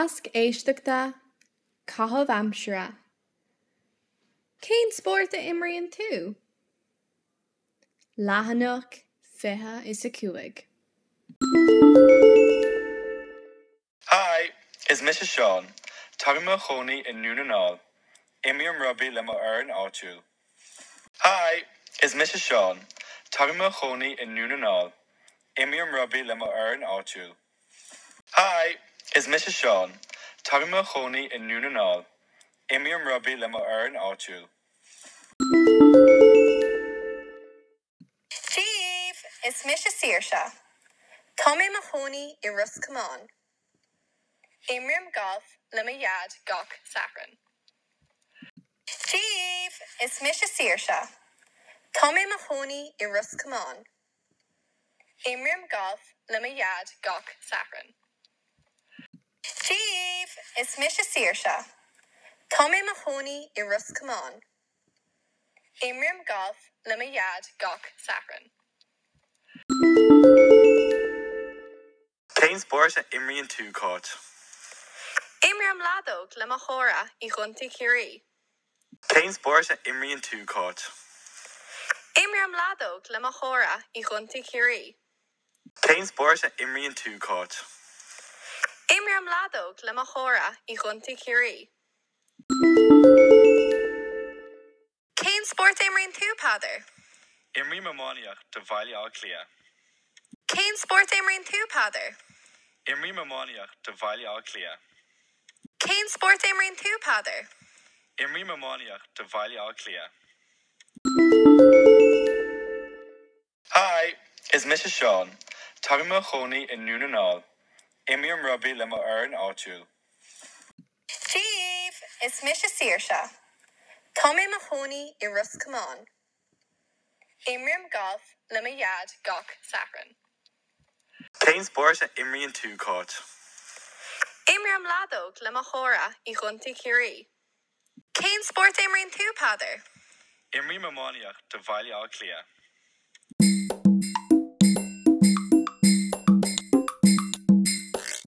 Tasc éisteachta, Caitheamh aimsire. Cén spórt a imríonn tú? Leathanach 25. Hi! Is mise Seán. Táim i mo chónaí i nDún na nGall. Imrím rugbaí le mo fhoireann áitiúil. Hi! Is mise Seán. Táim i mo chónaí i nDún na nGall. Imrím rugbaí le mo fhoireann áitiúil. Hi! Is mise Seán. Táim i mo chónaí i nDún na nGall. Imrím rugbaí le mo fhoireann áitiúil. Dia daoibh! Is mise Saoirse. Tá mé i mo chónaí i Ros Comáin. Imrím galf le mo dhaid gach Satharn. Dia daoibh! Is mise Saoirse. Tá mé i mo chónaí i Ros Comáin. Imrím galf le mo dhaid gach Satharn. Dia daoibh! Is mise Saoirse. Tá mé i mo chónaí i Ros Comáin. Imrím galf le mo dhaid gach Satharn. Cén spórt a imríonn tú, Cáit? Imrím leadóg le mo chara i gContae Chiarraí. Cén spórt a imríonn tú, Cáit? Imrím leadóg le mo chara i gContae Chiarraí. Cén spórt a imríonn tú, Cáit? Imrím leadóg le mo chara i gContae Chiarraí. Cén spórt a imríonn tú, Peadar? Imrím iománaíocht do Bhaile Átha Cliath. Cén spórt a imríonn tú, Peadar? Imrím iománaíocht do Bhaile Átha Cliath. Cén spórt a imríonn tú, Peadar? Imrím iománaíocht do Bhaile Átha Cliath. Hi! Is mise Seán. Táim i mo chónaí i nDún na nGall. Imrím rugbaí le mo fhoireann áitiúil. Dia daoibh! Is mise Saoirse. Tá mé i mo chónaí i Ros Comáin. Imrím galf le mo dhaid gach Satharn. Cén spórt a imríonn tú, Cáit? Imrím leadóg le mo chara i gContae Chiarraí. Cén spórt a imríonn tú, Peadar? Imrím iománaíocht do Bhaile Átha Cliath.